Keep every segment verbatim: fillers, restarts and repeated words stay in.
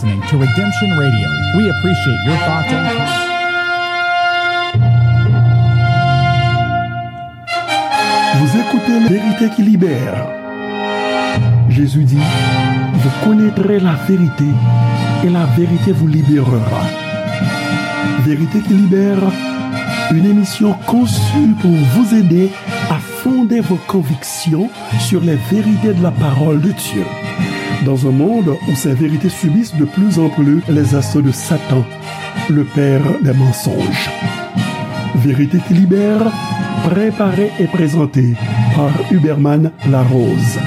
Listening to Redemption Radio. We appreciate your thoughts and comments. Vous écoutez La Vérité qui Libère. Jésus dit, vous connaîtrez la vérité et la vérité vous libérera. Vérité qui Libère, une émission conçue pour vous aider à fonder vos convictions sur les vérités de la parole de Dieu. Dans un monde où ces vérités subissent de plus en plus les assauts de Satan, le père des mensonges. Vérité qui Libère, préparée et présentée par Huberman Larose.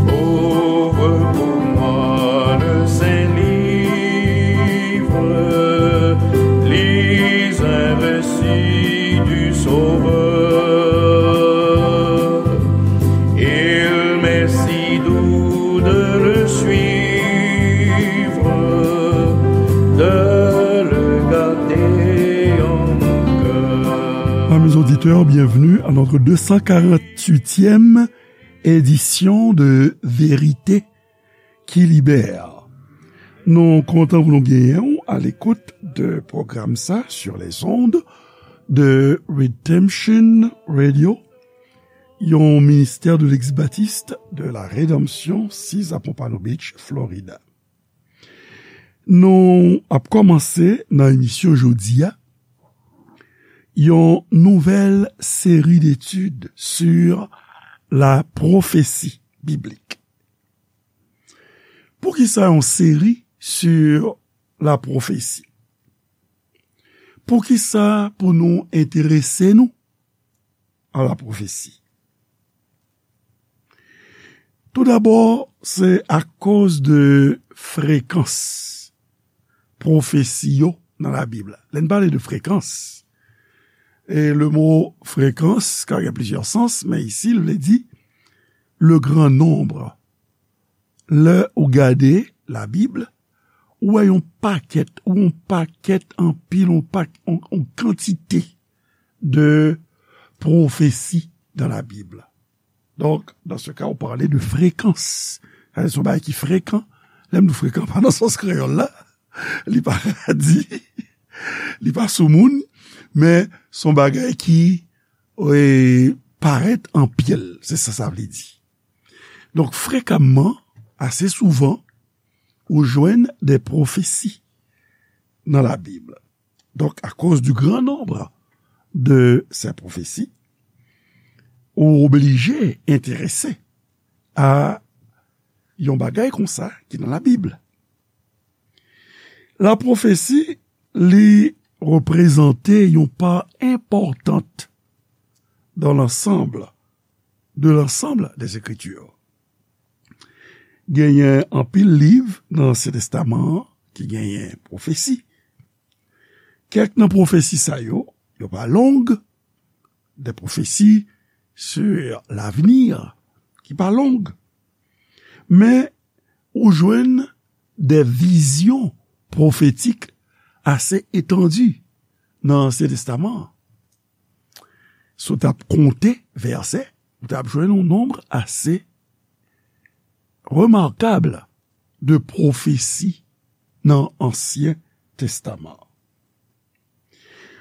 Ouvre pour moi le Saint-Livre, lis un récit du Sauveur. Il m'est si doux de le suivre, de le garder en mon cœur. Amis auditeurs, bienvenue à notre deux cent quarante-huitième édition de Vérité qui Libère. Nou kontan pou nou genyen w à l'écoute de pwogram sa sur les ondes de Redemption Radio, yon ministè de l'ex-baptiste de la Rédemption, six à Pompano Beach, Florida. Nou ap kòmanse nan emisyon jodi a yon nouvèl seri d'études sur la prophétie biblique. Poukisa yon seri sur la prophétie? Poukisa pou nou enterese nou a la pwofesi? Toudabò, se akoz de frekans pwofesi yo nan Labib la. Lè n pale de frekans, e le mo frekans ka gen plizyè sans, men isi, l vle di le grand nombre. Lè ou gade Labib, ou wè yon pakèt, ou yon pakèt anpil, yon pak-, yon, yon kantite de pwofesi dans la Bible. Donc, dans ce cas, on parlait de fréquence. Sa se yon bagay ki frekan. Lè m di frekan, pa nan sans kreyòl la. Li pa radi, li pa soumoun, men se yon bagay ki, e, parèt anpil. Se sa sa vle di. Donk, frekamman, ase souvan, ou jwenn de pwofesi nan Labib. Donc, à cause du grand nombre de ces prophéties, ou oblije enterese a yon bagay konsa ki nan Labib. La pwofesi, li reprezante yon pa enpòtant dans l'ensemble, de l'ensemble des Écritures. Genyen anpil liv nan Ansyen Testaman an ki genyen pwofesi. Kèk nan pwofesi sa yo, yo pa long, de pwofesi sur l'avenir ki pa long. Men, ou jwenn de vizyon pwofetik ase etandi nan Ansyen Testaman an. Si w t ap konte vèsè, ou t ap jwenn yon nonb ase remakab de pwofesi nan Ansyen Testaman.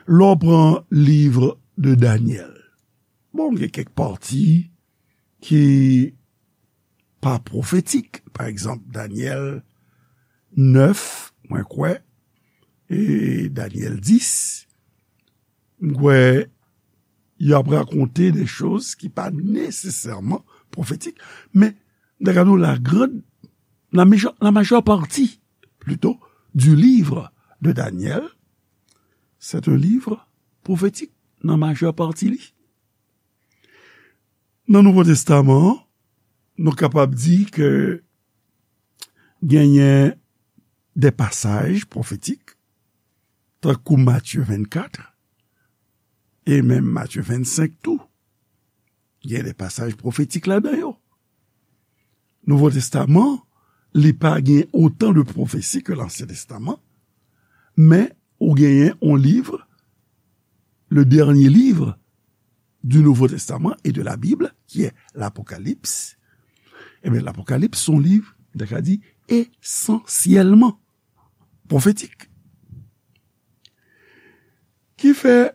Lè w pran liv de Danyèl, bon, gen kèk pati ki pa pwofetik. Pa egzanp, Danyèl nèf, mwen kwè, e Danyèl dis, m kwè y ap rakonte de choz ki pa nesesèman pwofetik, men, dakado, la grande, la major, la majeure partie, plutôt, du livre de Daniel, c'est un livre prophétique, nan majè pati li. Nan Nouvo Testaman an, nou kapab di ke genyen de pasaj pwofetik, tankou Matye vennkat, e menm Matye vennsenk tou. Gen de pasaj pwofetik ladan yo. Nouvo Testaman, li pa gen otan de pwofesi ke Lansyen Testaman, men ou genyen yon liv le dernier livre du Nouveau Testament et de la Bible, qui est l'Apocalypse, eh bien, l'Apocalypse, c'est un livre, on a dit, essentiellement prophétique. Ki fè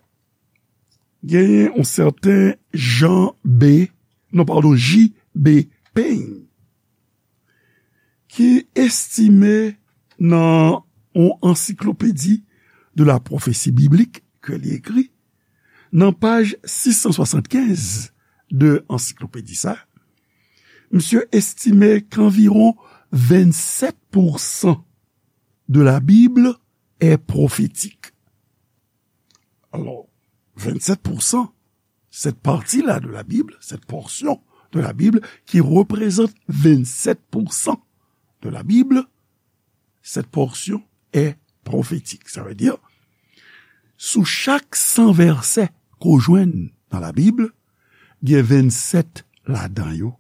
genyen yon sèten Jean B, non, padon, J B Payne, ki estime nan yon ansiklopedi de la pwofesi biblik ke li ekri, nan paj sis san swasannkenz de ansiklopedi sa, misye estime ke anviwon vennsèt pousan de la Bible est prophétique. Alors, vingt-sept pour cent, cette partie-là de la Bible, cette portion de la Bible qui représente vingt-sept pour cent de la Bible, cette portion est prophétique. Ça veut dire, sou chak san vèsè ke w jwenn nan Labib, gen vennsèt ladan yo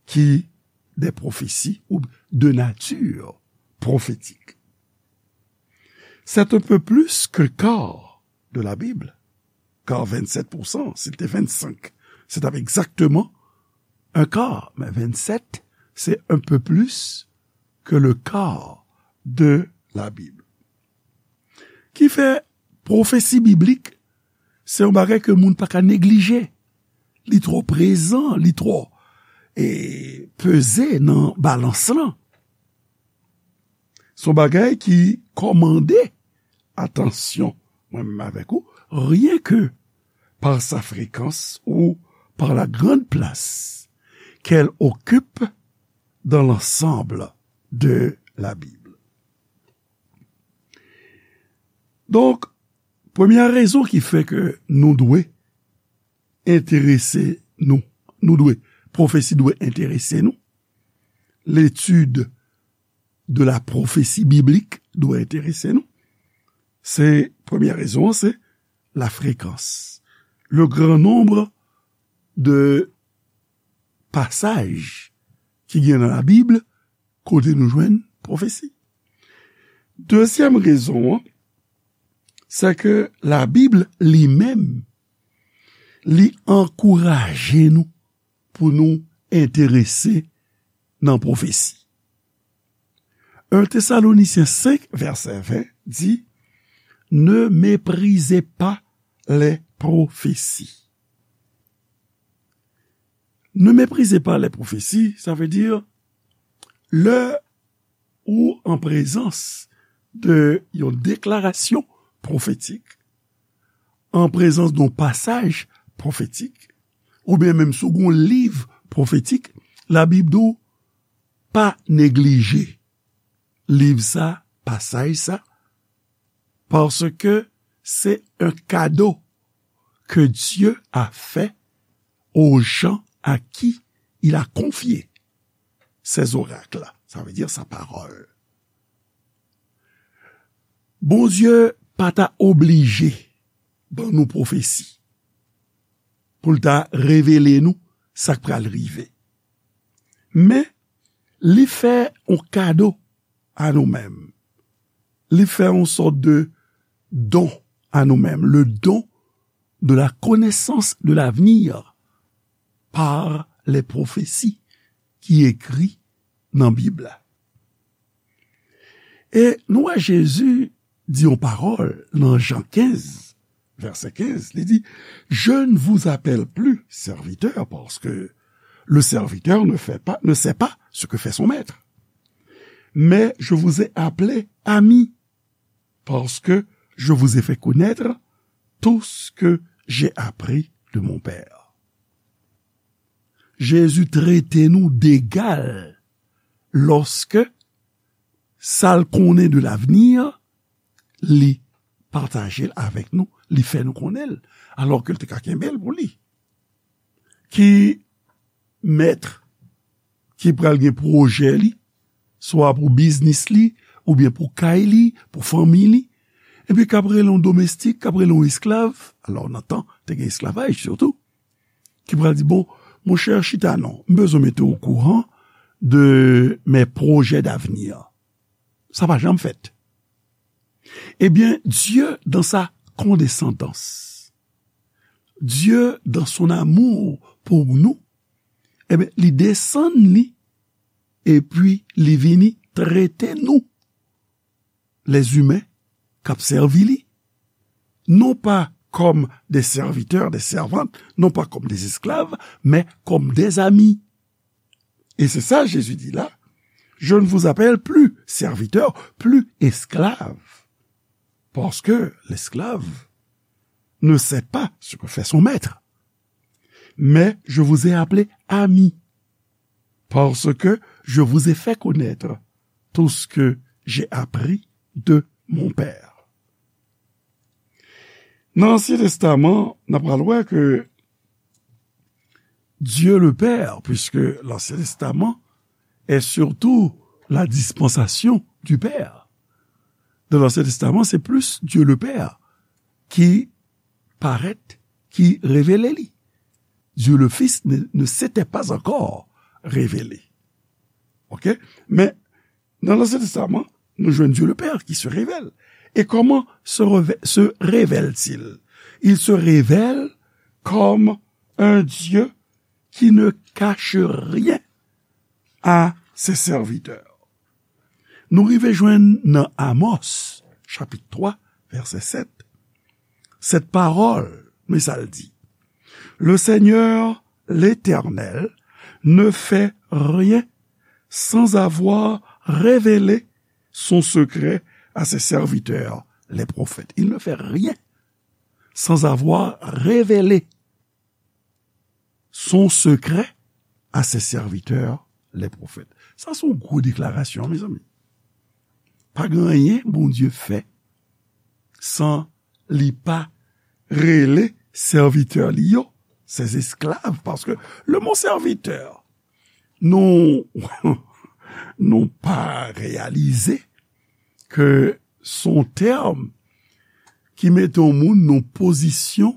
ki de pwofesi ou de nati pwofetik. C'est un peu plus que le quart de la Bible, car vingt-sept pour cent, si l te vennsenk, se t ap egzakteman un quart, men vennsèt, c'est un peu plus que le quart de la Bible. Ki fè pwofesi biblik, se yon bagay ke moun pa ka neglije. Li twò prezan, li twò, e, peze nan balans lan. Se yon bagay ki kòmande atansyon, mwen menm avèk ou, rien que par sa fréquence ou par la grande place qu'elle occupe dans l'ensemble de la Bible. Donk, premyè rezon ki fè ke nou dwe enterese nou, nou dwe, pwofesi dwe enterese nou, l'étude de la prophétie biblique dwe enterese nou, se, premyè rezon an, se la fréquence. Le grand nombre de passages ki gen nan Labib kote nou jwenn pwofesi. Dezyèm rezon an, se ke Labib li menm, li ankouraje nou pou nou enterese nan pwofesi. Un Thessaloniciens cinq, verset vingt dit, ne méprisez pas les prophéties. Ne méprisez pas les prophéties, sa vle di, lè ou an prezans de yon deklarasyon pwofetik, an prezans de yon pasaj pwofetik, oubyen menm si w gen yon liv pwofetik, Labib di w pa neglije liv sa, pasaj sa, paske se un cadeau que Dieu a fait aux gens à qui il a confié ses oracles. Ça veut dire sa parole. Bondye pa ta oblije ban nou pwofesi pou l ta revele nou sa k pral rive. Men, li fè yon kado a nou menm. Li fè yon sòt de don a nou menm, le don de la connaissance de l'avenir par les prophéties ki ekri nan Bib la. E nou wè Jezi di yon pawòl nan Jan kenz, vèsè kenz, li di, je ne vous appelle plus serviteur, parce que le serviteur ne fait pas, ne sait pas ce que fait son maître. Mais je vous ai appelé amis, parce que je vous ai fait connaître tout ce que j'ai appris de mon Père. Jezi trete nou degal lòske sa l konnen de lavni, li pataje l avèk nou, li fè nou konnen l, alòske l te ka kenbe l pou li. Ki mèt ki pral gen pwojè li, swa pou biznis li, oubyen pou kay li, pou fanmi li, epi k ap rele yon domestik, k ap rele yon esklav, alò nan tan, te gen esklavaj sitou, ki pral di, bon, monchè, chita non, m bezwen mete w okouran de mes projets d'avenir. Sa pa janm fèt. Ebyen, Dye, dans sa Dieu, dans son amour pour nous, ebyen, li desann li, epi li vini trete nou, lèzimen k ap sèvi li, non pa kòm de sèvitè, de sèvant, non pa kòm de esklav, men kòm de zami. Et c'est ça, Jésus dit là, je ne vous appelle plus serviteur, plus esclave, parce que l'esclave ne sait pas ce que fait son maître. Mais je vous ai appelé amis, parce que je vous ai fait connaître tout ce que j'ai appris de mon Père. Nan Ansyen Testaman, n ap pral wè ke Dieu le Père, puisque l'Ancien Testament est surtout la dispensation du Père. Dans l'Ancien Testament, c'est plus Dieu le Père qui paraît, qui révélait li. Dieu le Fils ne, ne s'était pas encore révélé. OK? Men, nan Lansyen Testaman, nou jwenn Dieu le Père qui se révèle. Et comment se, reve- se révèle-t-il? Il se révèle comme un Dieu qui ne cache rien à ses serviteurs. Nou rive jwenn nan Amos, chapit twa, vèsè sèt, cette parole, men sa l di, le Seigneur, l'Éternel, ne fait rien sans avoir révélé son secret à ses serviteurs, les prophètes. Il ne fait rien sans avoir révélé son secret à ses serviteurs, les prophètes. Sa se yon gwo deklarasyon, mezanmi. Pa gen anyen Bondye fè san li pa rele sèvitè li yo, ses esclaves, paske le mot serviteur, nou, nou pa reyalize ke se yon tèm ki mete yon moun nan pozisyon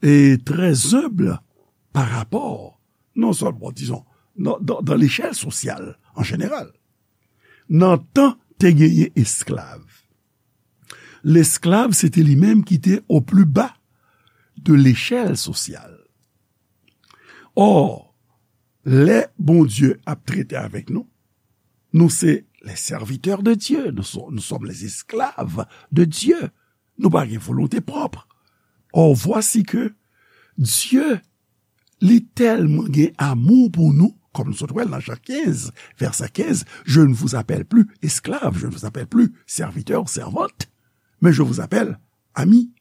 e trè enb pa rapò, non sèlman, dizon, nan, nan, nan lechèl sosyal an jeneral. Nan tan, te genyen esklav. Lesklav, se te li menm ki te o pli ba de lechèl sosyal. Or, lè Bondye ap trete avèk nou, nou se les serviteurs de Dieu, nous sommes, nous sommes les esclaves de Dieu. Nou pa gen volonte pwòp. Or, voici que Dieu, li tèlman gen amou pou nou, kòm nou sot wè l nan Jan kenz, vèsè kenz, je ne vous appelle plus esclave, je ne vous appelle plus serviteur, servante, mais je vous appelle ami.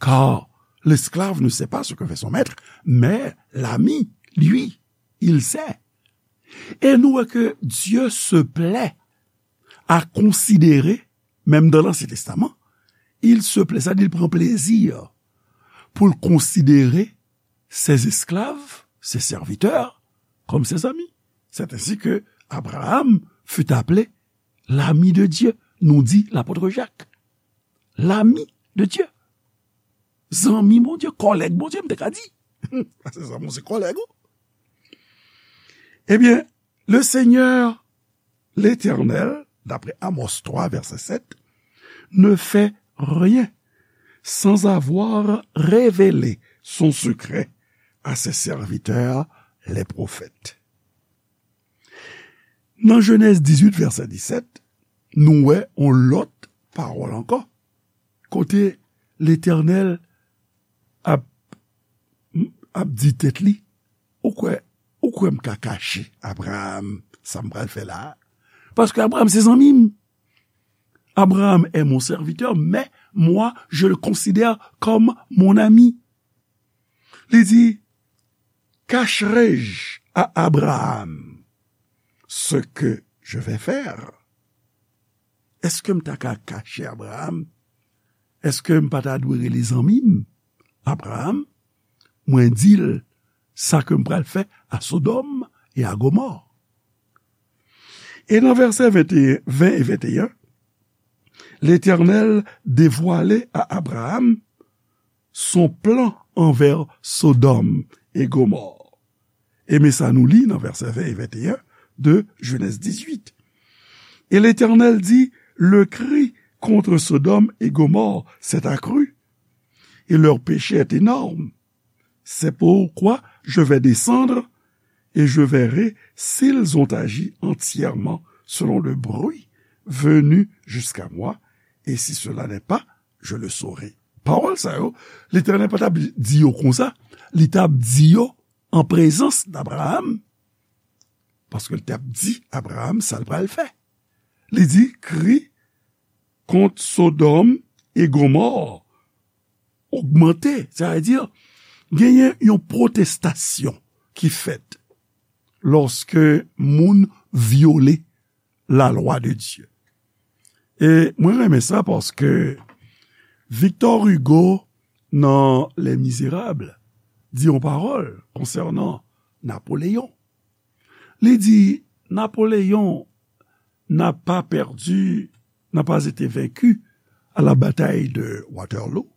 Car l'esclave ne sait pas ce que fait son maître, mais l'ami, lui, il sait. E nou wè ke Dieu se plaît à considérer, menm dans l'Ancien Testament, il se plaît, sa di l pran plezi pou l konsidere ses esclaves, ses serviteurs, comme ses amis. C'est ainsi que Abraham fut appelé l'ami de Dieu, nous dit l'apôtre Jacques. L'ami de Dieu. Zanmi Bondye, kòlèg Bondye, m te ka di. Paske zanmi w se kòlèg ou. Ebyen, le Seigneur, l'Éternel, d'après Amos twa, vèsè sèt, ne fait rien sans avoir révélé son secret à ses serviteurs, les prophètes. Nan Jenèz dizuit, vèsè disèt, nou wè yon lòt pawòl ankò, kote Letènèl ap, ap di tèt li, ou kwè, ou kwè m ka kache Abraram sa m pral fè la a? Paske Abraram se zanmi m. Abraham est mon serviteur, mais moi, je le considère comme mon ami. Li di, cacherai-je à Abraham ce que je vais faire? Èske m ta ka kache Abraham? Èske m pa ta dwe rele zanmi m Abraham? Mwen di l sa ke m pral fè a Sodòm e a Gomò. E nan vèsè venteyen, ven e venteyen, Letènèl devwale a Abraham son plan anvè Sodòm e Gomò. E men sa nou li nan vèsè ven e venteyen de Jenèz dizuit. Et l'Éternel dit, le cri contre Sodome et Gomorrhe s'est accru, et leur péché est énorme. C'est pourquoi je vais descendre et je verrai s'ils ont agi entièrement selon le bruit venu jusqu'à moi, et si cela n'est pas, je le saurai. Pawòl sa yo, Letènèl pa t ap di yo konsa, li t ap di yo an prezans d'Abraham, paske li t ap di Abraham sa l pral fè. Li di, kri kont Sodòm e Gomò ogmante, sètadi, genyen yon pwotestasyon ki fèt lòske moun vyole lalwa de Dye. E mwen renmen sa paske Victor Hugo, nan Les Misérables, di yon pawòl konsènan Napoleyon. Li di, Napoléon n'a pas perdu, n'a pas été vaincu à la bataille de Waterloo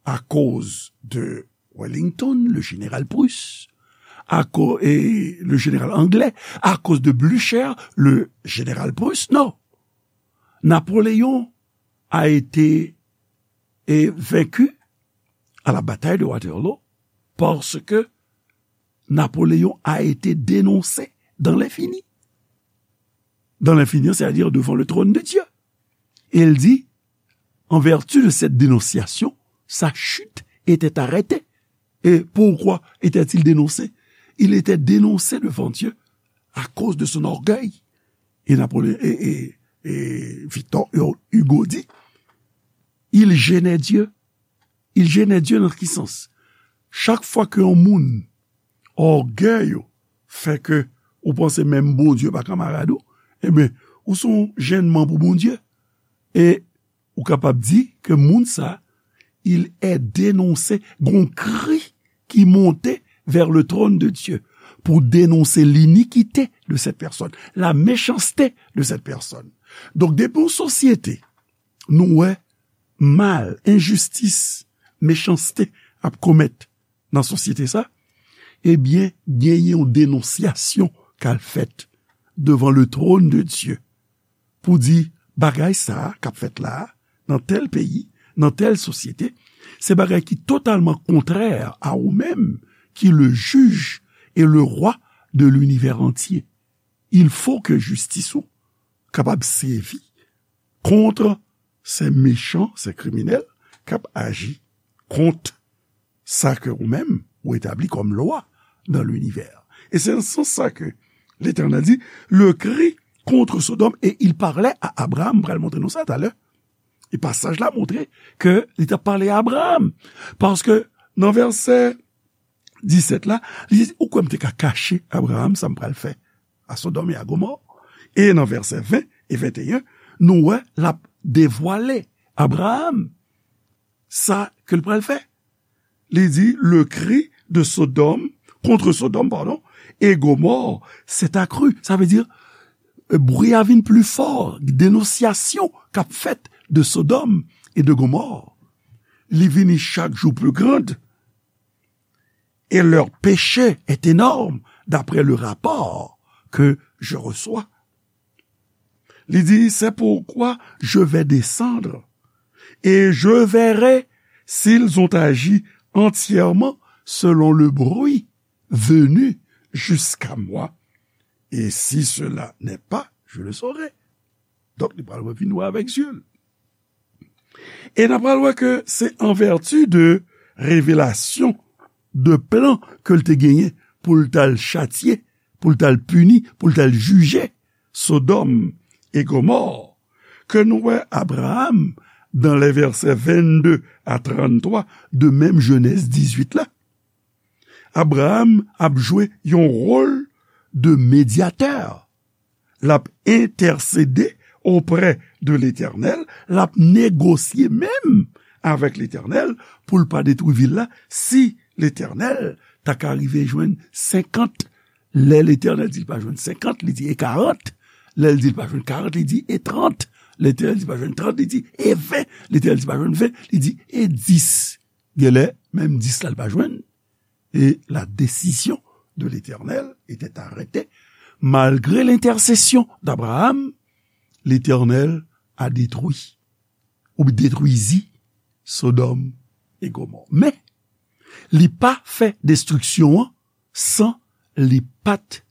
à cause de Wellington, le général prusse, à co- et le général anglais, à cause de Blücher, le général prusse. Non. Napoléon a été, eh, vaincu à la bataille de Waterloo parce que Napoléon a été dénoncé dans l'infini. Dans l'infini, c'est-à-dire devant le trône de Dieu. Et il dit, en vertu de cette dénonciation, sa chute était arrêtée. Et pourquoi était-il dénoncé ? Il était dénoncé devant Dieu à cause de son orgueil. Et Napoléon, et, et, et Victor Hugo dit, il gênait Dieu. Il gênait Dieu nan ki sans? Chak fwa ke yon moun, ògèy ou fè ke ou panse menm Bondye pa kanmarad ou, ebyen, ou se yon jennman pou Bondye. E ou kapab di ke moun sa, il est dénoncé, gon kri ki monte vers le trône de Dieu pour dénoncer l'iniquité de cette personne, la méchanceté de cette personne. Donk, depi yon sosyete, nou wè mal, enjistis, mechanste ap komèt nan sosyete sa, ebyen, genyen yon denonsyasyon k al fèt devan le trône de Dieu pou di, bagay sa a k ap fèt la a, nan tèl peyi, nan tèl sosyete, se bagay ki totalman kontrè a ou menm ki le juge et le roi de l'univers entier. Il faut que jistis ou kapab sèvi kont se mechan, se kriminèl k ap aji kont sa ke ou menm ou etabli kòm lwa nan linivè. E se nan sans sa ke Letènèl di, le cri contre Sodome, et il parlait à Abraham, m pral montre nou sa talè. E pasaj la montre ke li t ap pale a Abraham. Paske nan vèsè disèt la, li di, ou kwè m te ka kache Abraham sa m pral fè a Sodòm e a Gomò? E nan vèsè ven e venteyen, nou wè l ap devwale Abraham sa ke l pral fè. Li di, le cri de Sodome, contre Sodome, pardon, et Gomorrhe s'est accru. Sa vle di, bri a vin pli fò, denonsyasyon k ap fèt de Sodòm e de Gomò. Li vini chak jou pli grand, et leur péché est énorme, d'après le rapport que je reçois. Li di, c'est pourquoi je vais descendre, et je verrai s'ils ont agi entièrement selon le bruit venu jusqu'à moi, et si cela n'est pas, je le saurai. Donk, li pral revin wè avèk zye l. E n ap pral wè ke se an vèti de revelasyon, de plan ke l te genyen pou l t al chatye, pou l t al pini, pou l t al jije Sodòm e Gomò, ke nou wè Abraham, dans les versets vingt-deux à trente-trois de menm Jenèz dizuit la, Abraham ap jwe yon wòl de medyatè. L ap entèsede oprè de Letènèl, l ap negosye menm avèk Letènèl pou l pa detwi vil la. Si Letènèl ta ka rive jwenn senkant, lè Letènèl di l pa jwenn senkant, li di e karant. Lè l di l pa jwenn karant, li di e trant. Letènèl di l pa jwenn trant, li di e ven. Letènèl di l pa jwenn ven, li di e dis. Genlè, menm dis la, l pa jwenn. Et la décision de l'Éternel était arrêtée. Malgré l'intercession d'Abraham, Letènèl a detwi, ou detwizi Sodòm e Gomò. Men, li pa fè destriksyon an san li pa t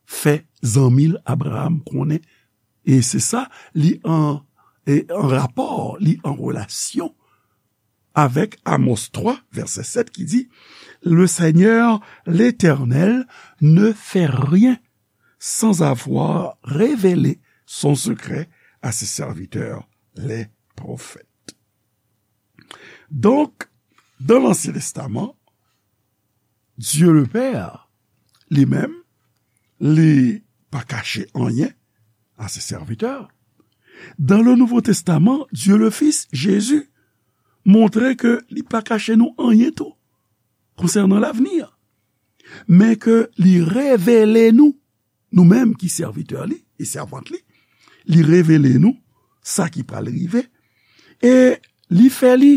fè zanmi l Abraram konnen. E se sa, li an, e an rapò, li an relasyon avèk Amos twa, vèsè sèt, ki di, Le Seigneur, l'Éternel, ne fait rien sans avoir révélé son secret à ses serviteurs, les prophètes. Donk, dans l'Ancien Testament, Dieu le Père, li menm, li pa kache anyen à ses serviteurs. Dans le Nouveau Testament, Dieu le Fils, Jésus, montre ke li pa kache nou anyen tou konsènan lavni. Men ke li revele nou, nou menm ki sèvitè li e sèvant li, li revele nou sa ki pral rive, e li fè li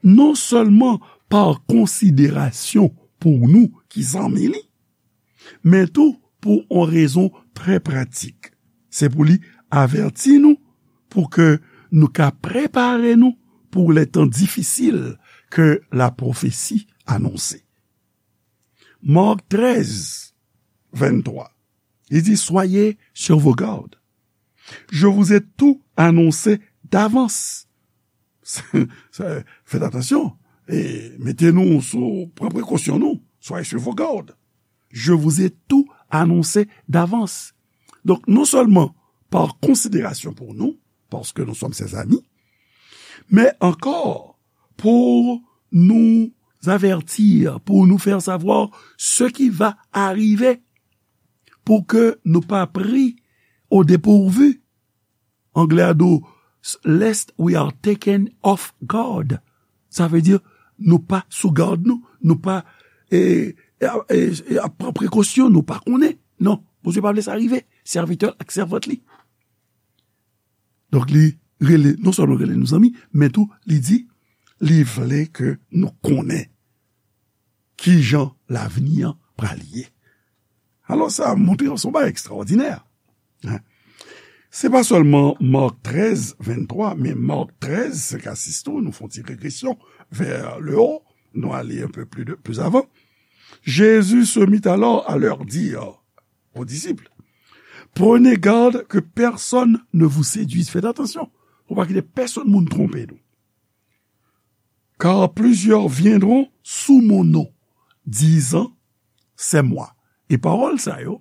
non sèlman pa konsiderasyon pou nou ki zanmi li, men tou pou yon rezon trè pratik. Se pou li avèti nou, pou ke nou ka prepare nou pou lè tan difisil ke la pwofesi anonse. Marc treize, vingt-trois, li di, Soyez sur vos gardes. Je vous ai tout annoncé d'avance. Faites attention. E mete nou sou, pran prekosyon nou. Soyez sur vos gardes. Je vous ai tout annoncé d'avance. Donk, non sèlman pa konsiderasyon pou nou, paske nou sòm ses amis, men ankò pou nou avertir, pour nous faire savoir ce qui va arriver, pou ke nou pa pri au dépourvu. Anglè a di w, lest we are taken off guard. Sa vle di, nou pa sou gad nou, nou pa, e, e, e, e ap pran prekosyon, nou pa konnen. Non, Bondye pa vle sa rive, sèvitè l ak sèvant li. Donk, li rele, non sèlman rele nou zanmi, men tou, li di, li vle ke nou konnen kijan lavni an pral ye. Alò, sa montre se yon bagay ekstraòdinè. Hein? Se pa sèlman Marc treize, vingt-trois, men Marc treize, senk a sis tou, nou fè yon ti regresyon vers le haut, nou ale un peu plus de, plus avant. Jésus se mit alors à leur dire, aux disciples, Prenez garde que personne ne vous séduise. Faites attention, pou pa kite pèsonn moun twonpe nou. Car plusieurs viendront sous mon nom, disant, C'est moi. E pawòl sa yo,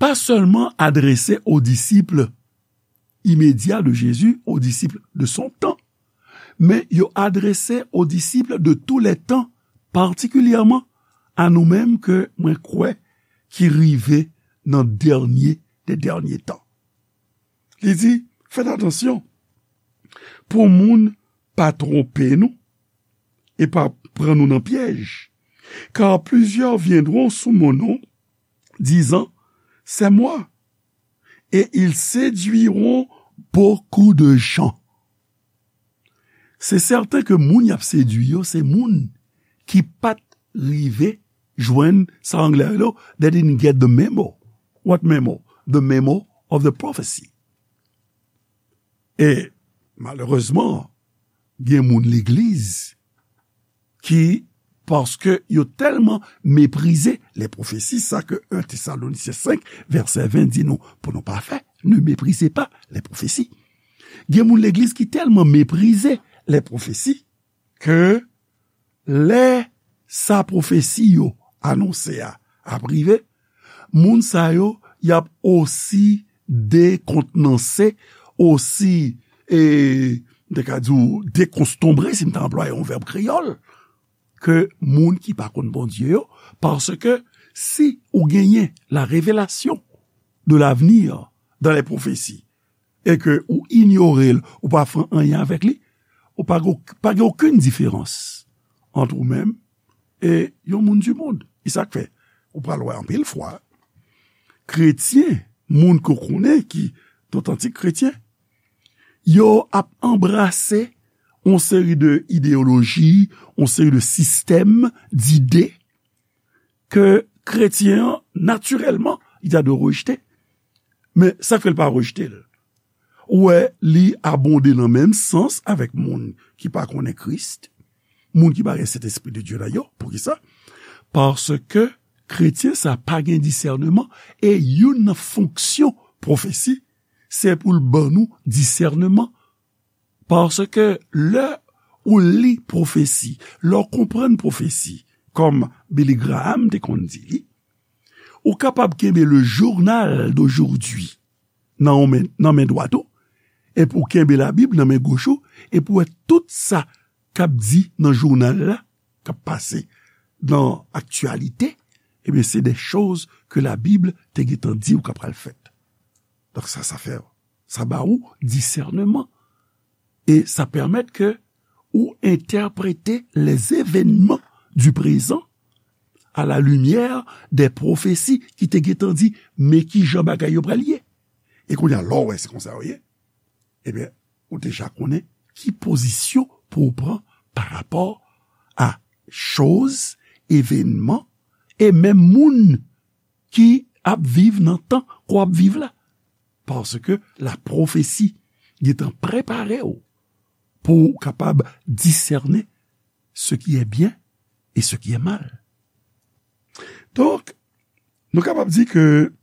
pa sèlman adrese aux disciples immédiats de Jésus, aux disciples de son temps, men yo adrese aux disciples de tous les temps, patikilyèman a nou menm ke mwen kwè ki rive nan dènye de dènye tan. Li di, fèt atansyon pou moun pa twonpe nou e pa pran nou nan pyèj. Car plusieurs viendront sous mon nom, disant, C'est moi, et ils séduiront beaucoup de gens. Se sèten ke moun y ap sedui yo, se moun ki pa t rive jwenn sa anglè rele, they didn't get the memo. What memo? The memo of the prophecy. E malerezman, gen moun legliz ki, paske yo tèlman meprize les prophéties, sa ke un Thessaloniciens cinq, verset vingt di nou, pou nou pa fè, ne méprisez pas les prophéties. Gen moun legliz ki tèlman meprize les prophéties ke lè sa pwofesi yo anonse a ap rive, moun sa yo, y ap osi dekontnanse, osi, e, m te ka di w, dekonstonbre, si m ta anplwaye yon vèb kreyòl, ke moun ki pa konn Bondye yo, paske si ou genyen la révélation de l'avenir dans les prophéties, e ke ou inyore l, ou pa fè anyen avèk li, ou pa gen, pa gen okenn diferans ant ou menm e yon moun di mond. E sa k fè, ou pral wè anpil fwa, kretyen, moun ke w konnen ki dotantik kretyen, yo ap anbrase yon seri de ideyoloji, yon seri de sistèm, dide, ke kretyen an, natirèlman, li ta dwe rejte. Men sa k fè l pa rejte l? Ou wè, li abonde nan menm sans avèk moun ki pa konnen Kris, moun ki pa gen Sentespri de Dye nan yo. Poukisa? Paske kretyen sa pa gen disèneman, e youn nan fonksyon pwofesi, se pou l ban nou disèneman. Paske lè ou li pwofesi, lè w konprann pwofesi, kòm Billy Graham te konn di li, ou kapab kenbe le journal d'aujourd'hui nan yon men, nan men dwat ou, epi w kenbe Labib nan men goch ou, epi w wè tout sa k ap di nan jounal la, k ap pase nan aktyalite, ebyen, se de choz ke Labib te gentan di w k ap pral fèt. Donk, sa, sa fè, sa ba ou disèneman. E sa pèmèt ke ou entèprete les événements du présent à la lumière des prophéties ki te gentan di, men ki jan bagay yo pral ye. E kounye a, lè w wè se konsa yo ye, ebyen, ou deja konnen ki pozisyon pou w pran pa rapò a choz, evènman, e menm moun ki ap viv nan tan ke w ap viv la. Paske lapwofesi gentan prepare w pou w kapab disène ce qui est bien et ce qui est mal. Donk, nou kapab di ke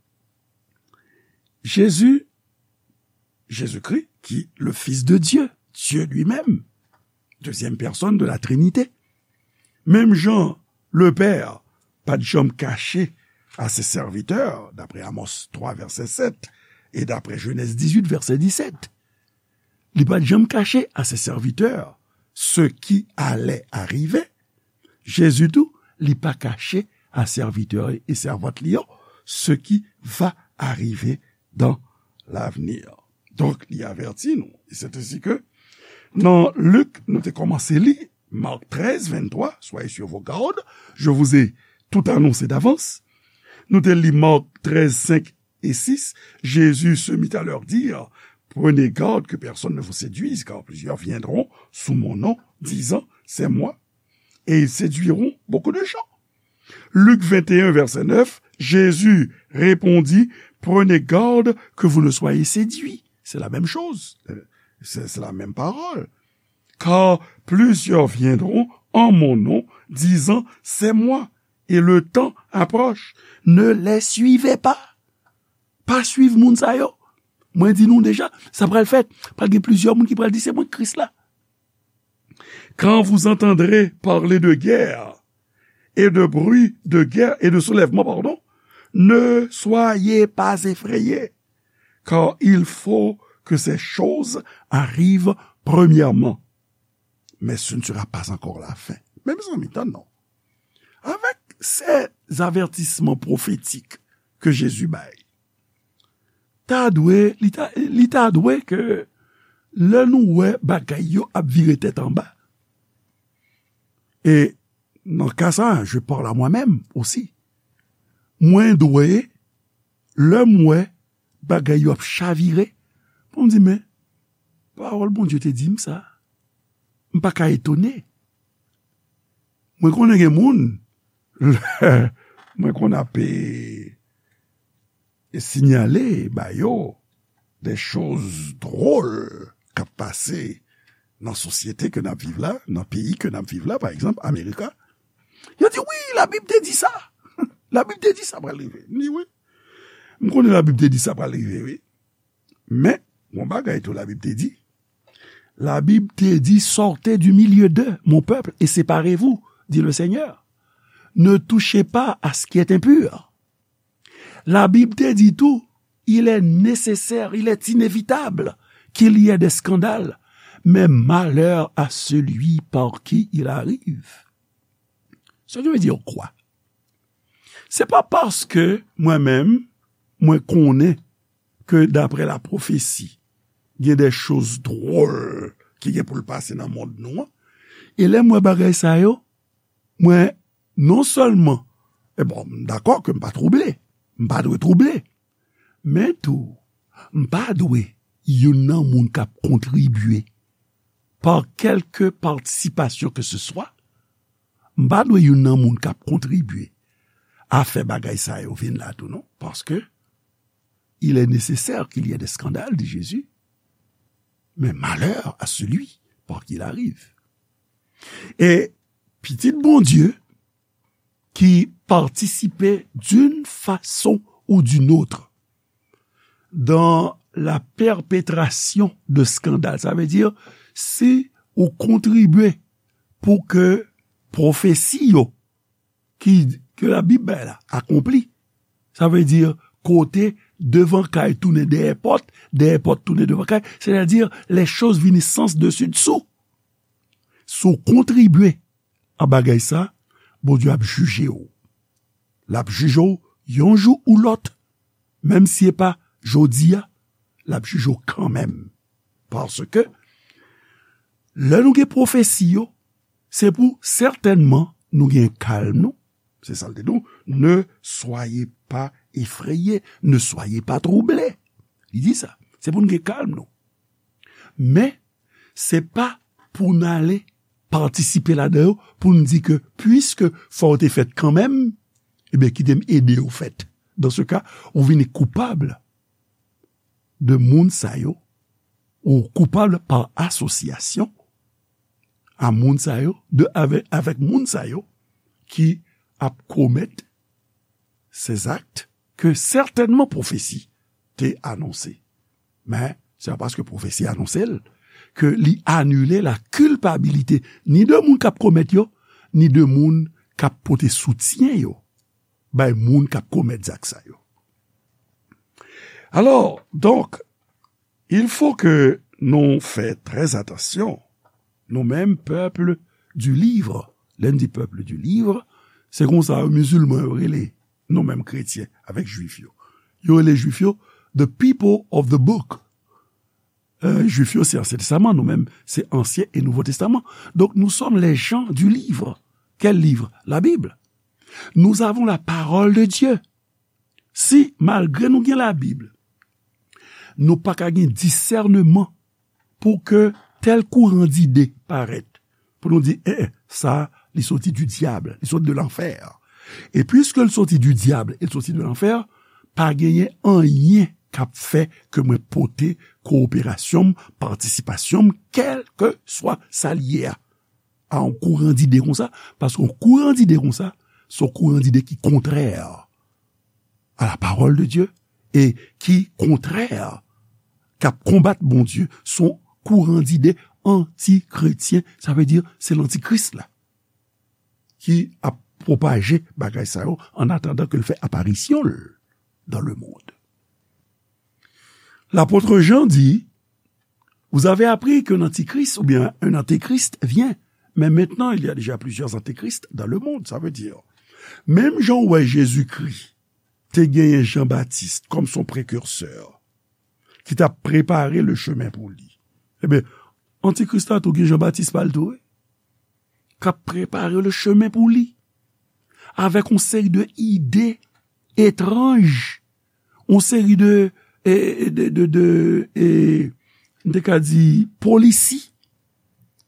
Jezi, Jezikri, ki le Fils de Dieu, Dieu lui-même, deuxième personne de la Trinité, menm jan Lepè pa t janm kache a se sèvitè, daprè Amos twa vèsè sèt, e daprè Jenèz dizuit vèsè disèt, li pa t janm kache a se sèvitè ce qui allait arriver. Jezi tou, li pa kache a sèvitè e sèvant li yo ce qui va arriver dans l'avenir. Donk, li avèti nou. E se te si ke nan Lik, nou te kòmanse li, Marc treize, vingt-trois, soyez sur vos gardes, je vous ai tout annoncé d'avance. Nou te li Marc treize, cinq et six, Jésus se mit à leur dire, prenez garde que personne ne vous séduise, car plusieurs viendront sous mon nom, disant, c'est moi, et ils séduiront beaucoup de gens. Luc vingt et un, verset neuf, Jésus répondit, prenez garde que vous ne soyez séduits. C'est la même chose. Euh, c'est, c'est la même parole. Car plusieurs viendront en mon nom, disant, c'est moi, et le temps approche. Ne les suivez pas. Pa swiv moun sa yo. Mwen di nou deja, sa pral fèt. Pral gen plizyè moun ki pral di, se mwen Kris la. Quand vous entendrez parler de guerre et de bruit de guerre et de soulèvement, pardon, ne soyez pas effrayés, car il faut que ces choses arrivent premièrement. Mais ce ne sera pas encore la fin. Men mezanmi, tann non. Avèk se avètisman pwofetik ke Jezi bay, ta dwe, li ta, li ta dwe ke lè nou wè bagay yo ap vire tèt anba, e nan ka sa, je parle à moi-même aussi. Mwen dwe, lè m wè bagay yo ap chavire, pou m di, men, pawòl Bondye te di m sa, m pa ka etone. Mwen konnen gen moun, mwen konn ap, e, e sinyale ba yo de choz dwòl k ap pase nan sosyete ke n ap viv la, nan peyi ke n ap viv la, pa egzanp, Amerika. Yo di, wi, Labib te di sa. Labib te di sa pral rive. M di, wi. M konnen Labib te di sa pral rive, wi. Men, yon bagay tou Labib te di. Labib te di, sortez du milieu d'eux, mon peuple, et séparez-vous, dit le Seigneur. Ne touchez pas à ce qui est impur. Labib te di tou, il est nécessaire, il est inévitable qu'il y ait des scandales, mais malheur à celui par qui il arrive. Ça veut dire quoi? Se pa paske mwen menm, mwen konnen ke daprè lapwofesi, gen de choz dwòl ki gen pou l pase nan mond nou an. E lè m wè bagay sa yo, mwen, non sèlman, e bon, m dakò ke m pa twouble, m pa dwe twouble, men tou, m pa dwe youn nan moun k ap kontribye, pa kèlke patisipasyon ke se swa, m pa dwe youn nan moun k ap kontribye a fè bagay sa yo vin la tou non, paske il est nécessaire qu'il y ait des scandales, dit Jésus, mais malheur à celui par qui il arrive. E pitit Bondye ki patisipe d'une façon ou d'une autre dans la perpétration de scandales. Sa vle di, si ou kontribye pou ke pwofesi yo ki, ke Labib bay la akonpli, sa vle di kote devan kay tounen dèyè pòt, dèyè pòt tounen devan kay, sètadi lè choz vini sans desi dsou. Si w kontribye a bagay sa, Bondye ap jije w. L ap jije w yon jou ou lòt, menm si e pa jodi a, l ap jije w kanmenm. Paske lè nou gen pwofesi yo, se pou sètènman nou gen kalm nou. Se sa l te di nou, ne soyez pas effrayés, ne soyez pas troublés. Li di sa, se pou nou gen kalm nou. Men, se pa pou n ale patisipe ladan yo, pou n di ke, piske fò yo te fèt kanmenm, ebyen, kite m ede yo fèt. Dan se ka, ou vini koupab de moun sa yo, ou koupab pa asosyasyon a moun sa yo, de, avè, avèk moun sa yo ki ap komèt se zak ke sètènman pwofesi te anonse. Men, se pa paske pwofesi anonse l ke li anile la kilpabilite ni de moun k ap komèt yo, ni de moun k ap pote soutyen yo bay moun k ap komèt zak sa yo. Alò, donk, il faut que nou fè trè atansyon, nou menm pèp du livre. Lè n di pèp du livre, se konsa mizilman yo rele nou menm kretyen avèk jwif yo. Yo rele jwif yo the people of the book. Euh, jwif yo se Ansyen Testaman, nou menm se Ansyen e Nouvo Testaman. Donc, nous sommes les gens du livre. Quel livre? La Bible. Nous avons la parole de Dieu. Si, malgre nou gen Labib, nou pa ka gen disèneman pou ke tèl kouran dide parèt, pou nou di, eh, eh, sa, li soti du diable, li soti de lanfè. E piske l soti du diable, e l soti de lanfè, pa genyen anyen k ap fè ke mwen pote kowoperasyon m, patisipasyon m, kèlkeswa sa l ye a, a yon kouran dide konsa, paske yon kouran dide konsa, se yon kouran dide ki kontrè a la parole de Dieu e ki kontrè, k ap konbat Bondye, se yon kouran dide antikretyen, sa vle di se lantikris la ki ap pwopaje bagay sa yo an atandan ke l fè aparisyon l dans le monde. L'apôtre Jean dit, vous avez appris qu'un antichrist ou bien un antéchrist vient, mais maintenant il y a déjà plusieurs antéchrists dans le monde. Sa vle di, menm jan w wè Jezikri te genyen Jan Batis kòm son prekirsè, ki t ap prepare le chemin pou li. Ebyen, antikris la tou gen Jan Batis pa l tou, wi. K ap prepare le chemin pou li. Avèk yon seri de ide etranj, yon seri de, e, de, de, de, e, m te ka di, polisi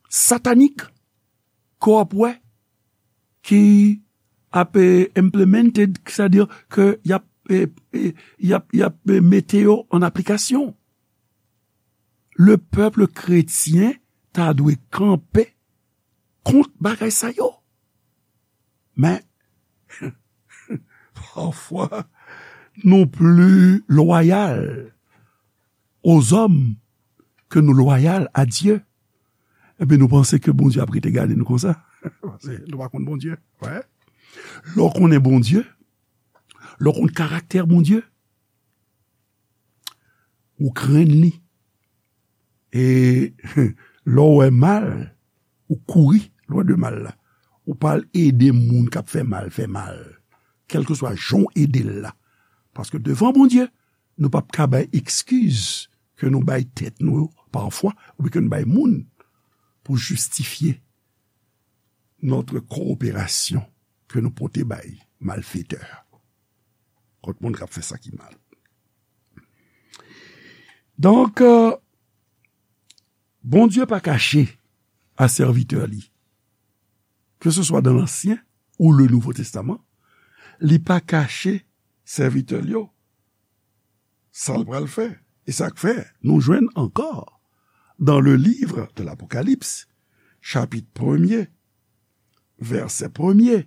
satanik, ke w ap wè, ki ap, e, implemented, sètadi ke y ap, e, e, y ap, y ap, e, mete yo an aplikasyon. Le pèp kretyen ta dwe kanpe kont bagay sa yo. Men, pafwa, nou pli lwayal aux hommes ke nou lwayal a Dye. Epi nou panse ke Bondye ap rete gade nou konsa. Paske nou pa konn Bondye. Wè. Lè w konnen Bondye, lè w konn karaktè Bondye, ou krenn li. E lè w wè mal, ou kouri lwen de mal la. Ou pa al ede moun k ap fè mal fè mal. Kèlkeswa jan w ede l la. Paske devan Bondye, nou p ap ka bay ekskiz ke nou bay tèt nou yo pafwa, oubyen ke nou bay moun pou jistifye notre coopération ke nou pote bay malfetè, kont moun k ap fè sa ki mal. Donk, euh, Bondye pa kache a sèvitè li, ke se swa dan Lansyen ou le Nouvo Testaman, li pa kache sèvitè l yo sa l pral fè. E sa k fè, nou jwenn ankò dans le livre de l'Apocalypse, chapitre premier, vèsè premye,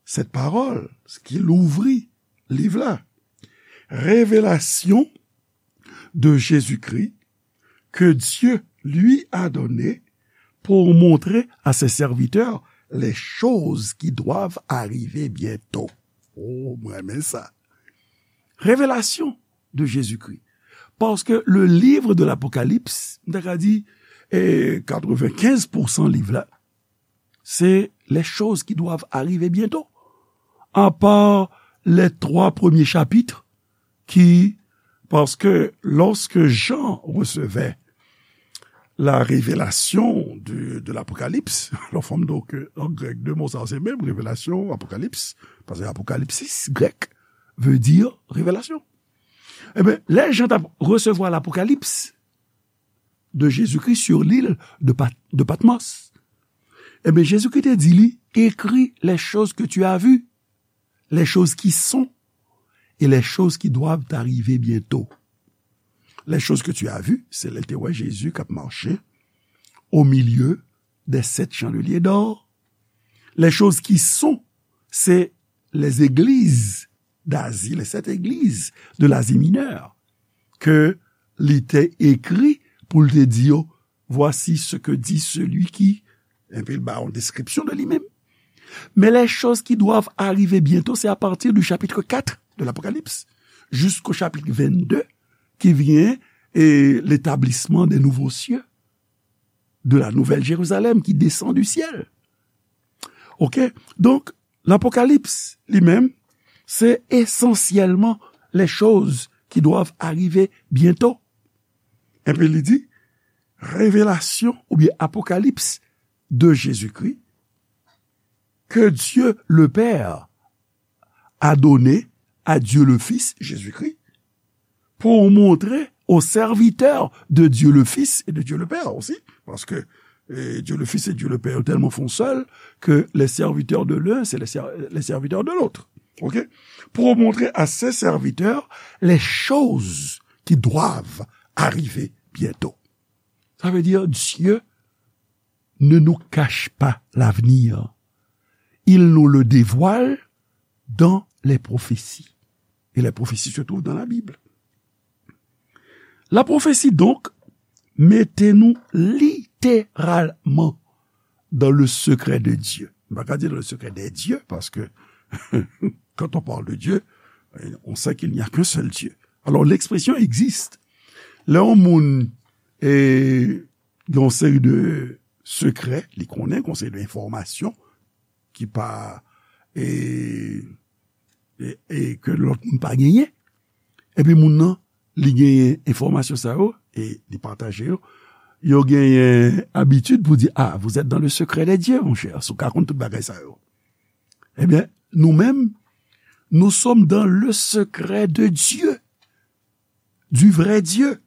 cette parole ki louvri liv la, révélation de Jésus-Christ que Dieu lui a donné pour montrer à ses serviteurs les choses qui doivent arriver bientôt. Oh, mwen renmen sa. Révélation de Jésus-Christ. Paske le livre de l'Apocalypse, m ta ka di, eh, katrevenkenz pousan liv la, c'est les choses qui doivent arriver bientôt. À part les trois premiers chapitres qui, parce que lorsque Jean recevait la révélation de, de l'Apocalypse, alò fò m di w ke an grèk, de mo sa yo se menm, révélation, apocalypse, paske apocalypsis, grèk, veut dire révélation. Ebyen, lè Jan t ap resevwa l'Apocalypse de Jésus-Christ sur l'île de Pat-, de Patmos, ebyen, Jezikri te di li, écris les choses que tu as vues, les choses qui sont et les choses qui doivent arriver bientôt. Les choses que tu as vues, se lè l te wè Jezi k ap mache au milieu des sept chandeliers d'or. Les choses qui sont, c'est les églises d'Asie, les sept églises de l'Asie mineure, ke li te ekri pou l te di yo, voici ce que dit celui qui, epi l ba yon deskripsyon de li menm. Mais les choses qui doivent arriver bientôt, c'est à partir du chapitre quatre de l'Apocalypse jusqu'au chapitre vingt-deux qui vient et l'établissement des nouveaux cieux, de la nouvelle Jérusalem qui descend du ciel. Ok? Donk, l'Apocalypse li menm, se esansyèlman les choses qui doivent arriver bientôt. Epi li di, révélation oubyen apocalypse de Jésus-Christ que Dieu le Père a donné à Dieu le Fils, Jésus-Christ, pour montrer aux serviteurs de Dieu le Fils et de Dieu le Père aussi, parce que eh, Dieu le Fils et Dieu le Père tellement font seul que les serviteurs de l'un, c'est les, ser- les serviteurs de l'autre. Ok? Pour montrer à ses serviteurs les choses qui doivent arriver bientôt. Ça veut dire, Dieu ne nous cache pas l'avenir. Il nous le dévoile dans les prophéties. Et les prophéties se trouvent dans la Bible. La prophétie, donc, mete nou literalman dans le secret de Dieu. M pa ka di dans le secret des dieux, paske quand on parle de Dieu, on sait qu'il n'y a qu'un seul Dieu. Alors, l'expression existe. Lè yon moun eh, gen yon seri de sekrè, li konnen, gen yon seri de enfòmasyon ki pa, e, e, e ke lòt moun pa genyen. Epi moun nan, li genyen enfòmasyon sa yo, e li pataje yo. Yo genyen abitid pou di, ah, vous êtes dans le secret des dieux, mon cher, si w ka konn tout bagay sa yo. Ebyen, nou menm, nous sommes dans le secret de Dieu, du vrai Dieu,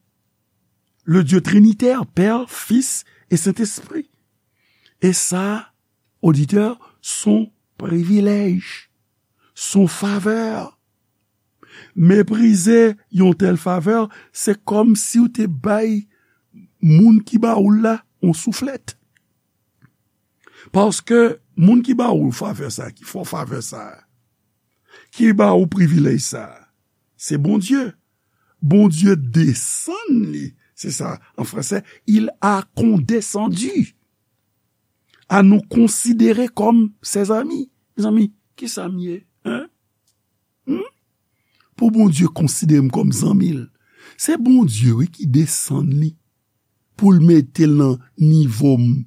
le Dieu trinitaire, Père, Fils et Saint-Esprit. Et ça, auditeur, son privilège, son faveur. Meprize yon tèl favè, se kòm si w te bay moun ki ba ou l la yon souflèt. Paske moun ki ba ou favè sa, ki fè w favè sa, ki ba ou privilèj sa, se Bondye. Bondye desann li, se sa, an fransè, il a condescendu à nous considérer comme ses amis. Mezanmi, kisa m ye? Hein? Hmm? Pou Bondye konsidere m kòm zanmi l, se Bondye, wi, ki desann li pou l mete l nan nivo m.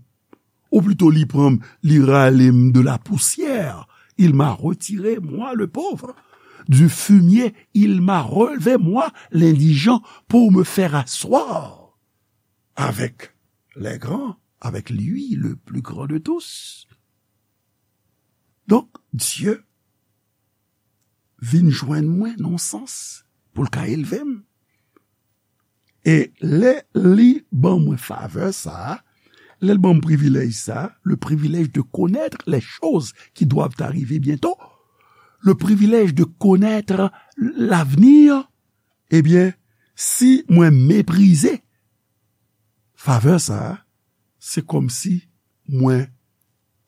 Ou plito li pran m, li rale m de la poussière. Il m'a retiré, moi le pauvre, du fumier. Il m'a relevé, moi l'indigent, pour me faire asseoir avec les grands, avec lui le plus grand de tous. Donk, Dye vin jwenn mwen nan yon sans pou l ka elve m. E lè li ban mwen favè sa a, lè l ban m privilèj sa a, le privilège de connaître les choses qui doivent arriver bientôt, le privilège de connaître l'avenir, ebyen, si mwen meprize favè sa a, se kòmsi mwen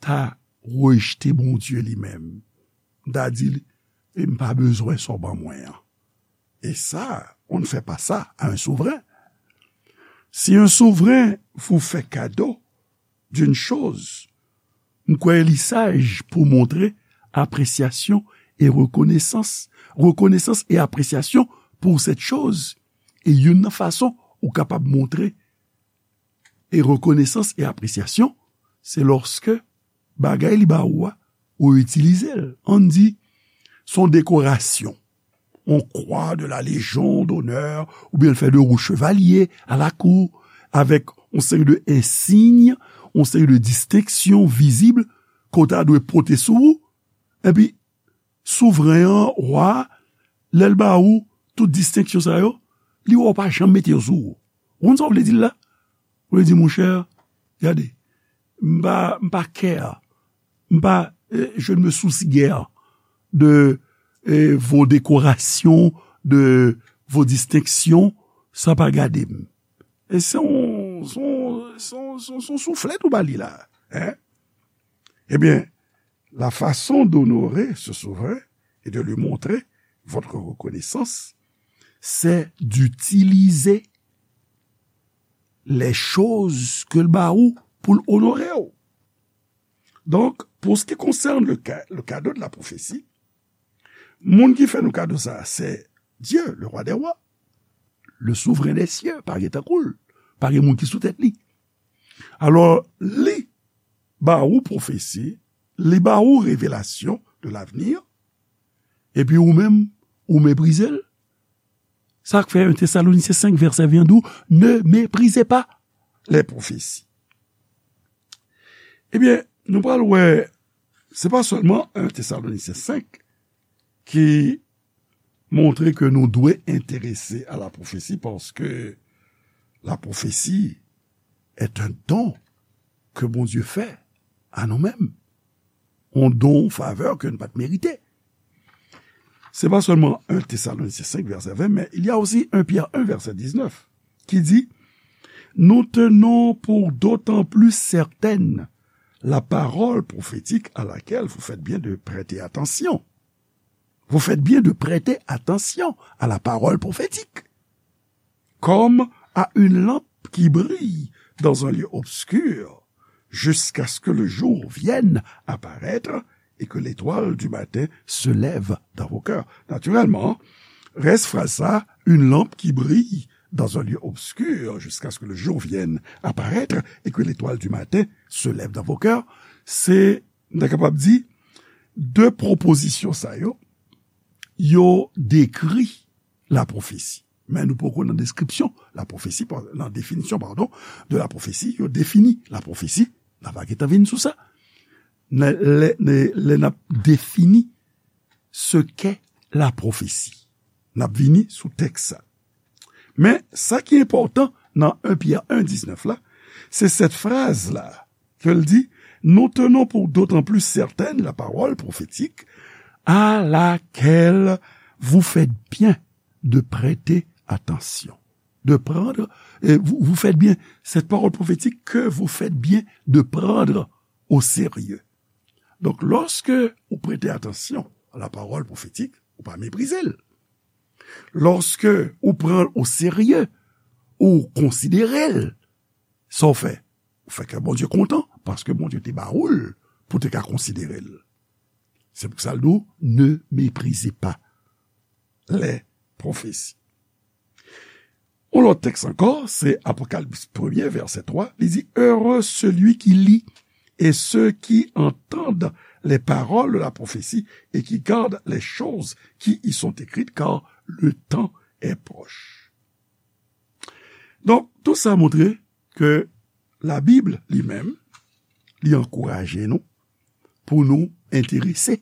ta rejte Bondye li menm. M ta di li, e m pa bezwen sa w ban mwen an. Et ça, on ne fait pas ça à un souverain. Si un souverain vous fait cadeau d'une chose, m kwè li saj pou montre apresyasyon e rekonesans, rekonesans e apresyasyon pou cette chose. E youn nan fason ou kapab montre e rekonesans e apresyasyon, se lòske bagay li ba ou a, ou itilize l. Ann di, se yon dekorasyon. On croix de la Légion d'honneur, oubyen l fè de ou chevalye a lakou, avèk yon seri de ensiy, yon seri de distenksyon vizib ke w ta dwe pote sou ou. Epi, souvren an, wa a, lè l ba ou tout distenksyon sa yo, li wè w pa janm mete yo sou ou. Ou konn sa w vle di l la? Ou vle di, monchè, gade, m pa, m pa care, m pa, eh, je ne me soucie guère de, eh, vos décorations, de vos distinctions, sa pa gade m. E se yon, se yon, se yon, se yon, se yon souflèt ou ba li la, hein? Ebyen, la façon d'honorer ce souverain et de lui montrer votre reconnaissance, c'est d'utiliser les choses ke l ba ou pou l onore w. Donc, pour ce qui concerne le ca-, le cadeau de la prophétie, moun ki fè nou kado sa, c'est Dieu, le roi des rois, le souverain des cieux, pa gen tankou l, pa gen moun ki sou tèt li. Alò, li ba ou pwofesi, li ba ou revelasyon de l'avenir, epi ou menm, ou meprize l. Sa k fè un Thessaloniciens cinq, verset vingt di w, ne méprisez pas les prophéties. Ebyen, nou pral wè, se pa sèlman un Thessaloniciens cinq ki montre ke nou dwe enterese a la pwofesi, paske la prophétie est un don que Bondye fè a nou menm. On don, on faveur ke nou pa t merite. Se pa sèlman un Thessaloniciens cinq, verset vingt, mais il y a aussi un Pierre un, verset dix-neuf, qui dit, nous tenons pour d'autant plus certaine la parole prophétique à laquelle vous faites bien de prêter attention. Vous faites bien de prêter attention à la parole prophétique, comme à une lampe qui brille dans un lieu obscur, jusqu'à ce que le jour vienne apparaître et que l'étoile du matin se lève dans vos cœurs. Naturellement, rès fraz sa, une lampe qui brille dans un lieu obscur jusqu'à ce que le jour vienne apparaître et que l'étoile du matin se lève dans vos cœurs, se, nou ta kapab di, de pwopozisyon sa yo, yo dekri la pwofesi. Men nou poko nan deskripsyon la pwofesi, pa-, nan definisyon, padon, de la pwofesi, yo defini la pwofesi. N a va gentan vin sou sa. Lè, lè, lè, lè n ap defini ce qu'est la prophétie. N ap vini sou tèks sa. Men, sa ki enpòtan nan un Pyè un diznèf la, se sèt fraz la, ke l di, nous tenons pour d'autant plus certaine la parole prophétique à laquelle vous faites bien de prêter attention. De prendre, et vous, vous faites bien, cette parole prophétique que vous faites bien de prendre au sérieux. Donk, lòske ou prete atansyon a la parole prophétique, ou pa meprize l. Lòske ou pran l o serye, ou konsidere l, sa w fè? Ou fè kè Bondye kontan, paske Bondye te ba ou l pou te ka konsidere l. Se pou sa l di w, ne méprisez pas les prophéties. Yon lòt tèks ankò, se Apokalips premye, vèsè twa, li di, heureux celui qui lit et ceux qui entendent les paroles de la prophétie et qui gardent les choses qui y sont écrites, car le temps est proche. Donk, tout sa montre ke Labib li menm, li ankouraje nou pou nou enterese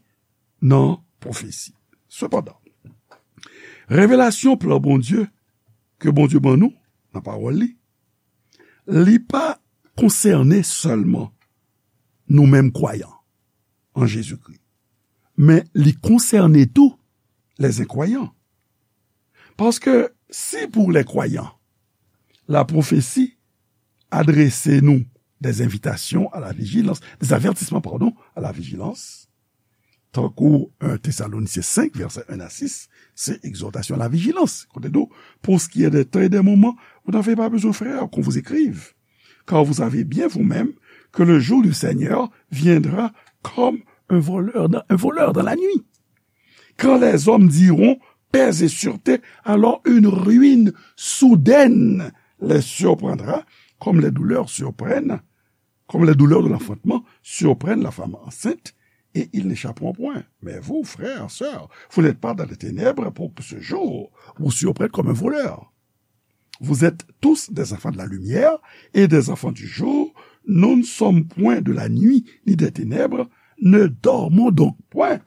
nan pwofesi. Sepandan, revelasyon plan Bondye ke Bondye ban nou nan pawòl li, li pa konsène sèlman nou menm kwayan an Jezikri, men li konsène tou lèzenkwayan. Paske si pou lèkwayan, lapwofesi adrese nou des invitations à la vigilance, des avertissements, pardon, à la vigilance. Tankou un Thessaloniciens cinq, versets un à six, c'est exhortation à la vigilance. Kote nou, pour ce qui est des temps et des moments, vous n'avez pas besoin, frères, qu'on vous écrive, car vous savez bien vous-même que le jour du Seigneur viendra comme un voleur dans, un voleur dans la nuit. Quand les hommes diront, paix et sûreté, alors une ruine soudaine les surprendra, comme les douleurs surprennent, comme les douleurs de l'enfantement surprennent la femme enceinte, et ils n'échapperont point. Mais vous, frères, sœurs, vous n'êtes pas dans les ténèbres pour que ce jour vous surprenne comme un voleur. Vous êtes tous des enfants de la lumière et des enfants du jour. Nous ne sommes point de la nuit ni des ténèbres. Ne dormons donc point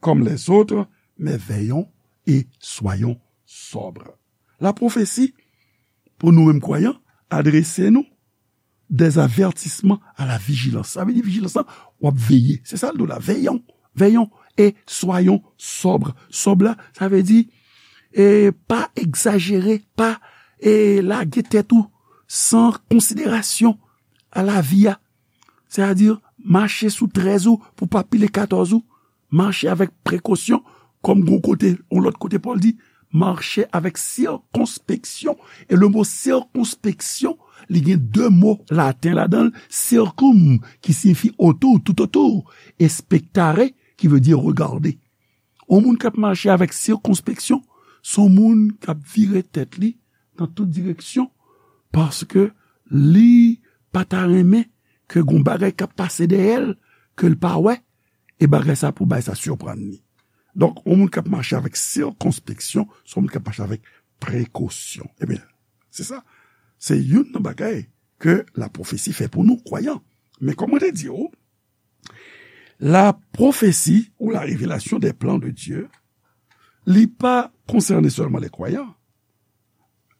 comme les autres, mais veillons et soyons sobres. La prophétie, pou nou menm kwayan, adrese nou des avertissements à la vigilance. Sa vle di vijilans lan, w ap veye. Se sa l di w la, veillons, veillons et soyons sobres. Sobres la, sa vle di, e, pa egzajere, pa, e, lage tèt ou san konsiderasyon a lavi a. Sètadi, mache sou trèz ou pou pa pile katòz ou. Mache avèk prekosyon, kòm gon kote, yon lòt kote Pòl di, mache avèk sikonspeksyon. E le mo sikonspeksyon, li gen de mo laten ladan l, circum, ki siyifi otou, toutotou, e spectare, ki vle di regade. Yon moun k ap mache avèk sikonspeksyon, se yon moun k ap vire tèt li nan tout direksyon, paske li pa ta renmen ke gon bagay k ap pase dèyè l, ke l pa wè, e bagay sa pou bay sa siprann li. Donk, yon moun k ap mache avèk sikonspeksyon, se yon moun k ap mache avèk prekosyon. Ebyen, se sa. Se youn nan bagay ke lapwofesi fè pou nou, kwayan. Men kòm mwen te di w, la prophétie ou la révélation des plans de Dieu, li pa konsène sèlman les croyants,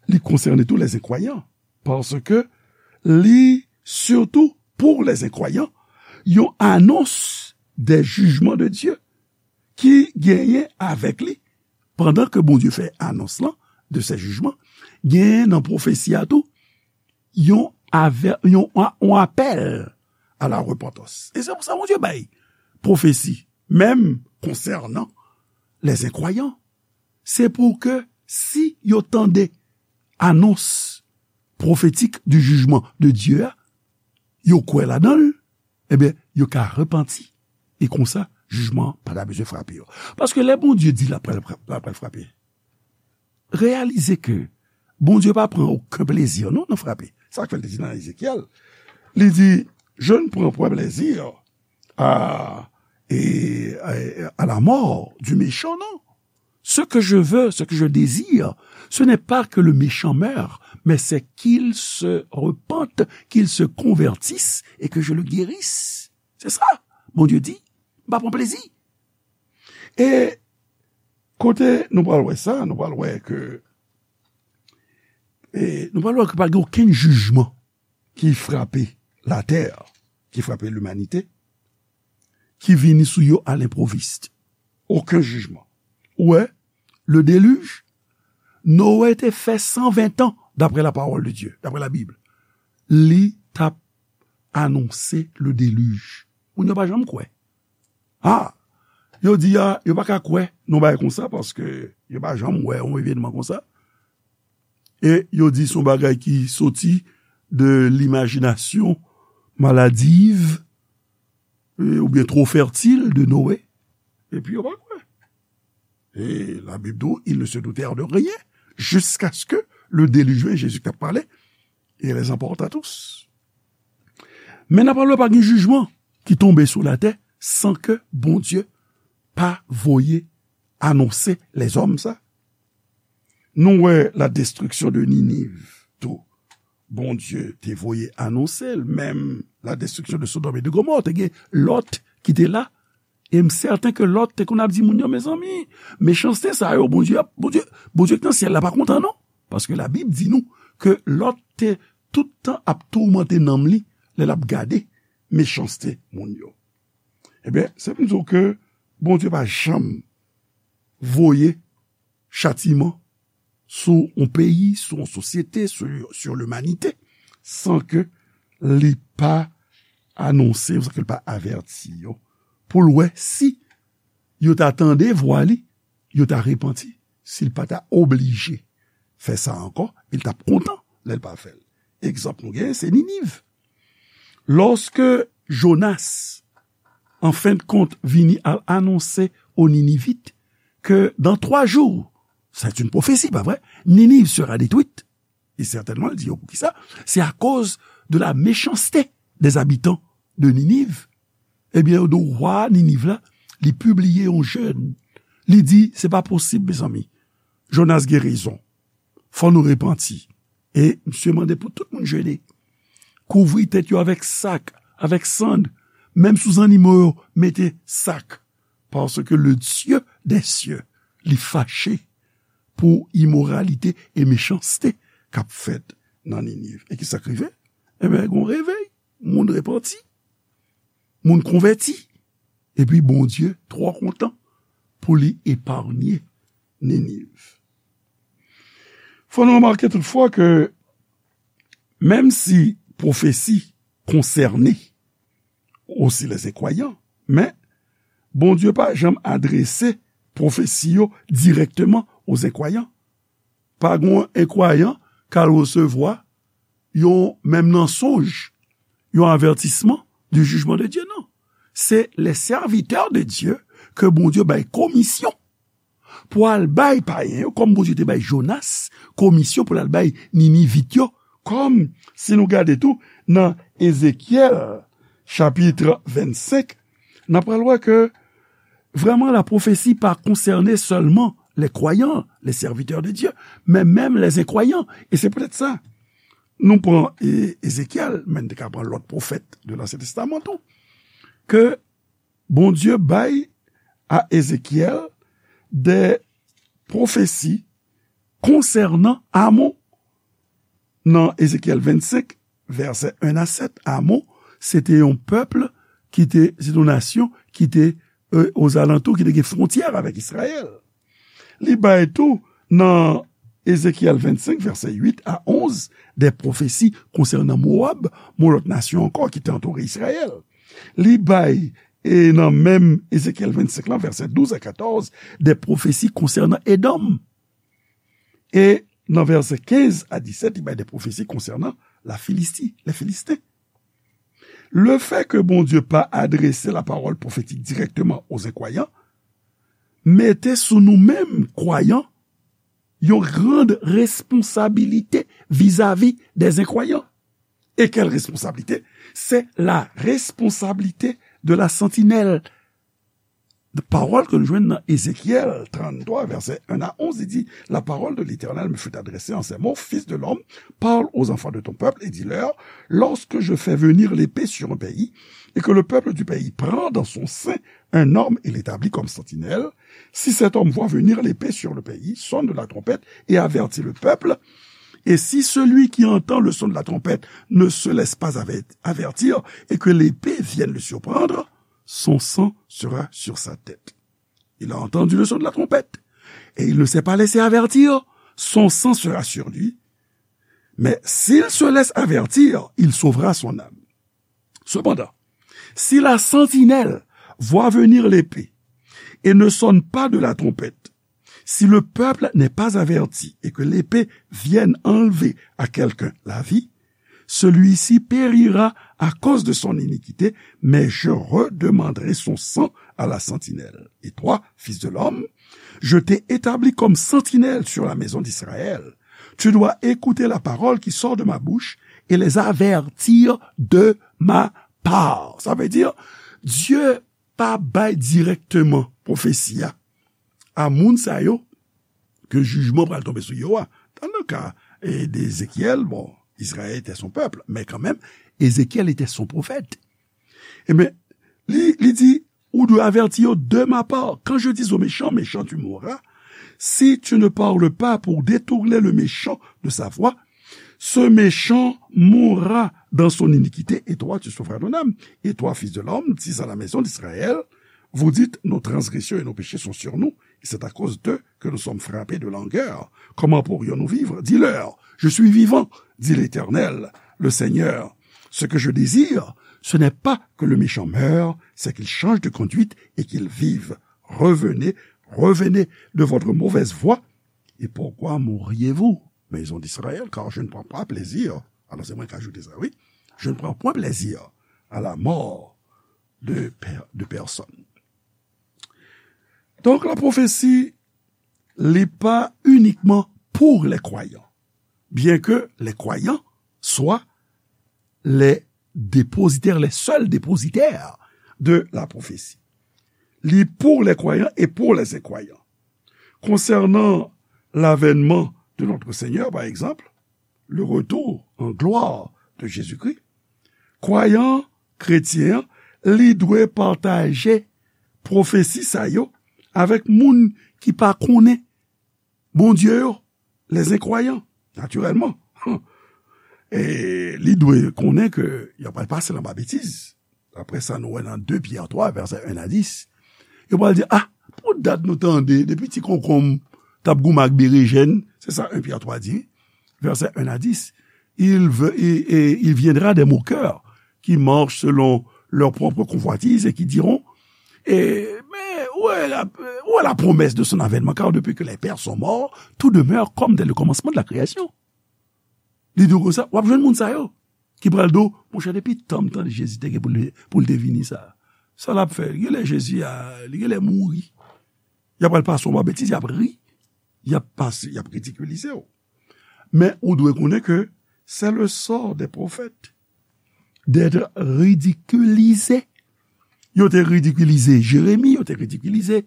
li konsène tou les incroyants, paske li sitou pou les incroyants, yon anons des jugements de Dieu ki genyen avèk li. Pandan ke Bondye fè anons lan de se jijman, genyen nan pwofesi a tou yon avè-, yon, yon apèl a la repantans. E se pou sa Bondye bay pwofesi, menm konsènan les incroyants. Se pou ke si yo tande anons pwofetik du jugement de Dieu a, yo kwè ladan l, ebyen, yo ka repanti. E konsa, jijman an pa ta bezwen frape yo. Paske lè Bondye di l ap pral, l ap pral frape, reyalize ke Bondye pa pran okenn plezi, non, nan frape. Sa k fè l te di nan Ezekyèl, li di, je ne prends point plaisir à, et, à, à la mort du méchant, non. Ce que je veux, ce que je désire, ce n'est pas que le méchant meure, mais c'est qu'il se repente, qu'il se convertisse et que je le guérisse. Se sa, Bondye di, m pa pran plezi. E kote nou pral wè sa, nou pral wè ke, e nou pral wè ke pa gen okenn jijman ki frape latè, ki frape limanite, ki vini sou yo a lenpwovis. Okenn jijman. Ou wè, le déluge, Noé te fè san ven tan, d'après la parole de Dieu, d'après la Bible. Li t ap anonse le déluge. Moun yo pa janm kwè. Ah, yo di a, yo pa ka kwè nan bagay konsa paske yo pa janm wè yon evènman konsa. E yo di se yon bagay ki soti de limajinasyon maladiv, e, oubyen twò fètil de Noé. Epi yo pa kwè. E la Bib di w, ils ne se doutèrent de rien jusqu'à ce que le déluge vienne, Jésus k ap pale, et les emporta tous. Men n ap pale pa gen jijman ki tonbe sou latè san ke Bondye pa voye anonse lèzòm sa. Nou wè la destriksyon de Niniv tou. Bondye te voye anonse l, menm la destriksyon de Sodòm e de Gomò, te gen Lòt ki te la. E m sèten ke Lòt te konn ap di moun yo, mezanmi, mechanste sa yo, Bondye ap, Bondye, Bondye k nan syèl la pa kontan non. Paske Labib di nou ke Lòt te tout tan ap toumante nanm li lè l ap gade mechanste moun yo. Ebyen, se pou n di w ke Bondye pa janm voye chatiman sou yon peyi, sou yon sosyete, sou, sur limanite, san ke li pa anonse, sa ke l pa avèti yo, pou l wè si yo ta tande vwa li, yo ta repanti, si l pa ta oblije fè sa ankò, e l t ap kontan lè l pa fè l. Egzanp nou genyen, se Niniv. Lòske Jonas, an fen de kont, vini al anonse aux Ninivites que dans trois jours, c'est une prophétie, pa vre? Ninive sera détruite. E sètènman, l di yo poukisa? C'est à cause de la méchanceté des habitants de Ninive. Ebyen, yo di w wa Niniv la, li pibliye yon jèn. Li di, se pa posib, mezanmi. Jonas gen rezon. Fò nou repanti. E misye mande pou tout moun jene. Kouvri tèt yo avèk sak, avèk sann. Menm sou zannimo yo, mete sak. Paske le Dieu des cieux, li fache pou imoralite e mechanste k ap fèt nan Niniv. E ki sa k rive? Ebyen, gen yon revèy. Moun repanti. Moun konvèti. Epi Bondye twò kontan pou li epaye Niniv. Fò nou remake toutfwa ke menm si pwofesi konsène osi lè enkwayan, men Bondye pa janm adrese pwofesi yo dirèkteman o enkwayan. Pa gen yon enkwayan k al resevwa yon, menm nan sonj, yon avètisman du jugement de Dieu, non. Se les serviteurs de Dieu ke Bondye bay komisyon pou al bay payen yo, kòm Bondye te bay Jonas komisyon pou l al bay Ninivit yo, kòm si nou gade tou nan Ezekyèl chapit vennsenk, n ap pral wè ke vrèman la pwofesi pa konsène sèlman les croyants, les serviteurs de Dieu, men menm les enkwayan. E se poutèt sa, nou pran e, Ezekyèl, men n te ka pran lòt pwofèt de Lansyen Testaman tou, ke Bondye bay a Ezekyèl de pwofesi konsènan Amon. Nan Ezekyèl vennsenk, vèsè en a sèt, Amon, se te yon pèp ki te, se te yon nasyon ki te e, ozalantou, ki te gen fwontyè avèk Izrayèl. Li bay tou nan Ezekyèl vennsenk, vèsè uit a onz, de pwofesi konsènan Mowab, yon lòt nasyon ankò ki te antoure Izrayèl. Li bay, e nan menm Ezekyèl vennsenk lan, vèsè douz a katòz, de pwofesi konsènan Edòm. E nan vèsè kenz a disèt, li bay de pwofesi konsènan la Filisti, les Philistins. Lefè ke Bondye pa adrese lapawòl pwofetik dirèkteman o enkwayan mete sou nou menm kwayan yon grand responsabilité vis-à-vis des incroyants. Et quelle responsabilité? C'est la responsabilité de la sentinelle. Pawòl ke nou jwenn nan Ezekyèl tranntwa, vèsè en a onz, li di, La parole de l'Éternel me fut adressée en ces mots, Fils de l'homme, parle aux enfants de ton peuple et dis-leur, lorsque je fais venir l'épée sur un pays, et que le peuple du pays prend dans son sein un homme et l'établit comme sentinelle, si cet homme voit venir l'épée sur le pays, sonne la trompette et avertit le peuple, et si celui qui entend le son de la trompette ne se laisse pas aver-, avertir et que l'épée vienne le surprendre, son sang sera sur sa tête. Il a entendu le son de la trompette, et il ne s'est pas laissé avertir, son sang sera sur lui. Mais s'il se laisse avertir, il sauvera son âme. Cependant, si la sentinelle voit venir l'épée et ne sonne pas de la trompette, si le peuple n'est pas averti et que l'épée vienne enlever à quelqu'un la vie, celui-ci périra à cause de son iniquité, mais je redemanderai son sang à la sentinelle. Et toi, fils de l'homme, je t'ai établi comme sentinelle sur la maison d'Israël. Tu dois écouter la parole qui sort de ma bouche et les avertir de ma part. Sa vle di, Dye pa bay dirèkteman pwofesi a a moun sa yo ke jijman pral tonbe sou yo a. Dans le cas, eh, d'Ézéchiel, bon, Israël était son peuple, mais quand même, Ézéchiel était son prophète. Ebyen, li, li di, ou dwe avèti yo de ma part. Quand je dis au méchant, méchant, tu mourras, si tu ne parles pas pour détourner le méchant de sa voie, ce méchant mourra dans son iniquité, et toi, tu sauveras ton âme. Et toi, fils de l'homme, dis à la maison d'Israël, vous dites, nos transgressions et nos péchés sont sur nous, et c'est à cause d'eux que nous sommes frappés de langueur. Comment pourrions-nous vivre ? Dis-leur, je suis vivant, dit l'Éternel, le Seigneur. Ce que je désire, ce n'est pas que le méchant meure, c'est qu'il change de conduite et qu'il vive. Revenez, revenez de votre mauvaise voie. Et pourquoi mourriez-vous, maison d'Israël, car je ne prends pas plaisir. Alors, c'est moi qui ajoute ça, oui. Je ne prends point plaisir à la mort de per-, de personne. Donc, la prophétie, li pa uniquement pour les croyants, bien que les croyants soient les dépositaires, les seuls dépositaires de la prophétie. Li pour les croyants et pour les incroyants. Concernant l'avènement de notre Seigneur, par exemple, le retour en gloire de Jésus-Christ, kwayan kretyen an, li dwe pataje pwofesi sa yo avèk moun ki pa konnen Bondye yo, les incroyants, natirèlman. E li dwe konnen ke y ap pral pase anba betiz. Daprè sa nou wè nan de Pyè twa, vèsè en a dis, yo pral di, ah, pou dat nou tande, depi ti konkonm t ap goumen ak berejèn, se sa en Pyè twa di, vèsè en a dis, il, ve- et- et il viendra des moqueurs qui marchent selon leur propre convoitise et qui diront, et, mais où est la, où est la promesse de son avènement? Car depuis que les pères sont morts, tout demeure comme dès le commencement de la création. Li di w konsa, w ap jwenn moun sa yo ki pral di w, monchè, depi tan m tande Jezi te gen pou l, pou l te vini sa, sa l ap fè? Genlè Jezi a, li genlè mouri. Y ap pral pase w anba betiz, y ap ri, y ap pase, y ap ridikilize w. Men ou dwe konnen ke c'est le sort des prophètes d'être ridiculisés. Yo te ridikilize Jeremi, yo te ridikilize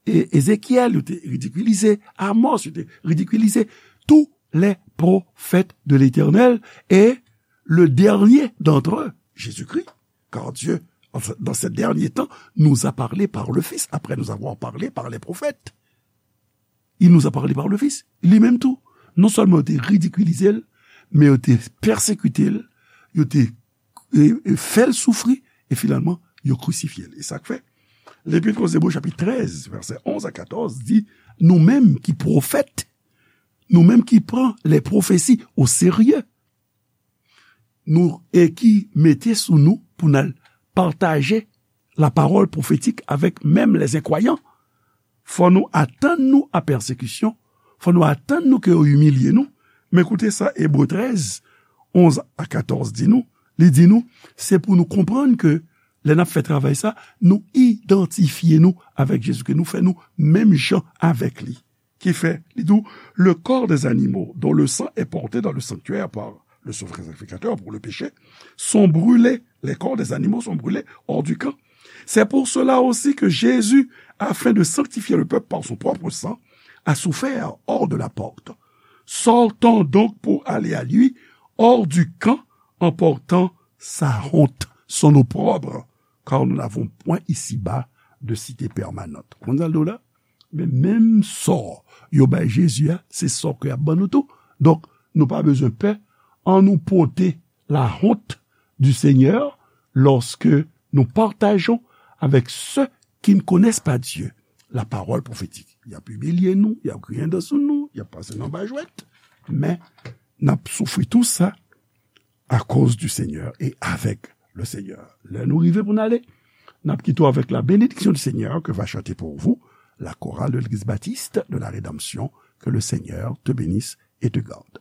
E- Ezekyèl, yo te ridikilize Amos, yo te ridikilize tous les prophètes de l'Éternel, et le dernier d'entre eux, Jésus-Christ, car Dieu, en ce- dans ces derniers temps, nous a parlé par le Fils, après nous avoir parlé par les prophètes. Il nous a parlé par le Fils. Li menm tou, non sèlman yo te ridikilize l, men yo te pèsekite l, yo te e, e fè l soufri, e finalman, yo krisifye l. E sa k fè, Lepit aux Hébreux, chapit trèz, vèsè onz a katòz, di, nou menm ki pwofèt, nou menm ki pran les prophéties au sérieux, nou, e ki mete sou nou pou n al pataje la parole prophétique avec même les incroyants, fò nou atann nou a pèsekisyon, fò nou atann nou ke yo imilye nou. Men koute sa Ebre trèz, onz a katòz di nou. Li di nou, se pou nou konprann ke lè n ap fè travay sa, nou idantifye nou avèk Jezi, ke nou fè nou menm jan avèk li. Ki fè, li di w, le corps des animaux dont le sang est porté dans le sanctuaire par le souverain sacrificateur pour le péché, sont brûlés, les corps des animaux sont brûlés hors du camp. C'est pour cela aussi que Jésus, afin de sanctifier le peuple par son propre sang, a souffert hors de la porte. Sortons donc pour aller à lui, hors du camp, en portant sa honte, son opprobre, car nous n'avons point ici-bas de cité permanente. Konn sa l di w la? Men menm sò yo bay Jezi a, se sò ke y ap ban nou tou. Donk, nou pa bezwen pè. Annou pote la honte du Seigneur lorsque nous partageons avec ceux qui ne connaissent pas Dieu la parole prophétique. Y ap imilye nou, y ap griyen dan sou nou, y ap pase nou anba jwèt, men n ap soufri tou sa à cause du Seigneur et avec le Seigneur. Lè nou rive pou n ale, n ap kite w avèk la bénédiction du Seigneur que va chanter pour vous la chorale de l'Église baptiste de la Rédemption. Que le Seigneur te bénisse et te garde.